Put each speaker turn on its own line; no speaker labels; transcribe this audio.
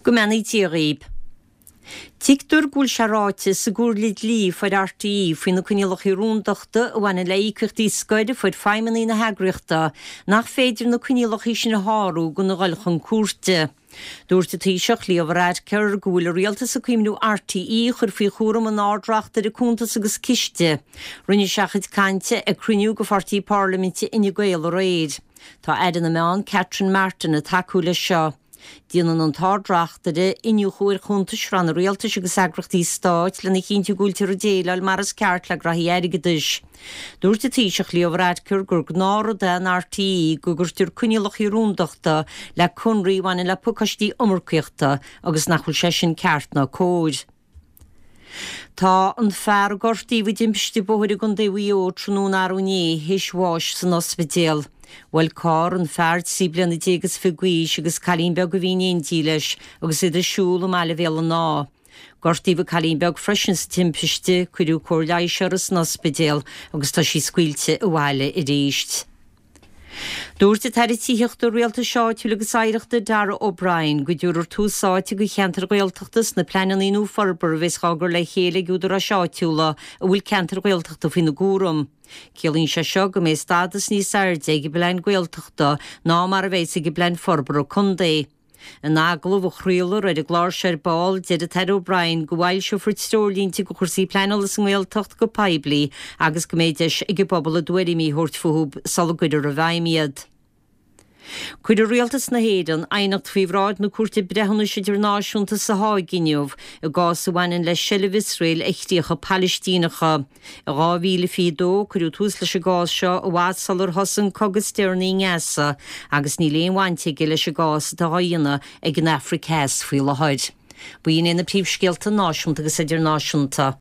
Go mbeannaí Dia dhaoib. Tuigtear go bhfuil sé ráite sa gcomhairle dlí a fuair RTÉ faoi na coinníollacha rúndachta a bhaineann le íocaíochtaí scoir a fuair feidhmeannaigh na heagraíochta nach féidir na coinníollacha sin a shárú gan a dhul chun cúirte. Dúirt an Taoiseach Leo Varadkar go bhfuil an rialtas ag cuimhniú RTÉ a chur faoi chúram an Ard-Reachtaire Cuntas agus Ciste. Rinne sé a chuid cainte ag cruinniú de pháirtí parlaiminte Fhine Gael aréir. Tá Aire na Meán Catherine Martin ag tacú leis seo. Déanann an tArd-Reachtaire iniúchadh ar chuntais ranna rialtais agus eagraíochtaí stáit lena chinntiú go bhfuiltear ag déileáil mar is ceart le graithí airgeadais. Dúirt an Taoiseach Leo Varadkar gur gnáthrud é in RTÉ go gcuirtear coinníollacha rúndachta le conraí a bhaineann le pacáistí iomarcaíochta agus nach bhfuil sé sin ceart ná cóir. Tá an fear a gortaíodh i dtimpiste bóthair i gContae Mhaigh Eo tráthnóna arú inné théis bháis san ospidéal. Bhuail carr an fear 13 bliana is fiche d'aois agus cailín beag a bhí in éindí leis agus iad ag siúl i mbaile Bhéal an Átha. Gortaíodh an cailín beag freisin sa timpiste, cuireadh cóir leighis uirthi san ospidéal agus tá sí scaoilte abhaile arís. Dúirt an tAire Tithíochta, Rialtais Áitiúil agus Oidhreachta Darragh O'Brien go dtabharfar tús áite do cheantair Ghaeltachta sna pleananna nua forbartha a bheas á gcur le chéile ag údaráis áitiúla a bhfuil ceantair Ghaeltachta faoina gcúram. Ciallaíonn sé seo go mbeidh stádas níos airde ag an bplean Gaeltachta ná mar a bheas ag an bplean forbartha contae. In agallamh a chraolfar ar an gclár seo ar ball, deir an tAire O'Brien go bhfoilseofar treoirlínte do chúrsaí pleanála sa nGaeltacht go poiblí agus go mbeidh deis ag an bpobal a dtuairimí a thabhairt fúthu sula gcuirfear i bhfeidhm iad. Cuirfidh Rialtas na hÉireann aighneacht faoi bhráid na Cúirte Breithiúnais Idirnáisiúnta sa Háig inniu i gcás a bhaineann le seilbh Iosrael ar chríocha Palaistíneacha. I 2022, cuireadh tús leis an gcás seo i bhfad sular thosaigh an cogadh is deireanaí i nGaza agus níl aon bhaint aige leis an gcás atá á dhéanamh ag an Afraic Theas faoi láthair. B'in iad na príomhscéalta náisiúnta agus idirnáisiúnta.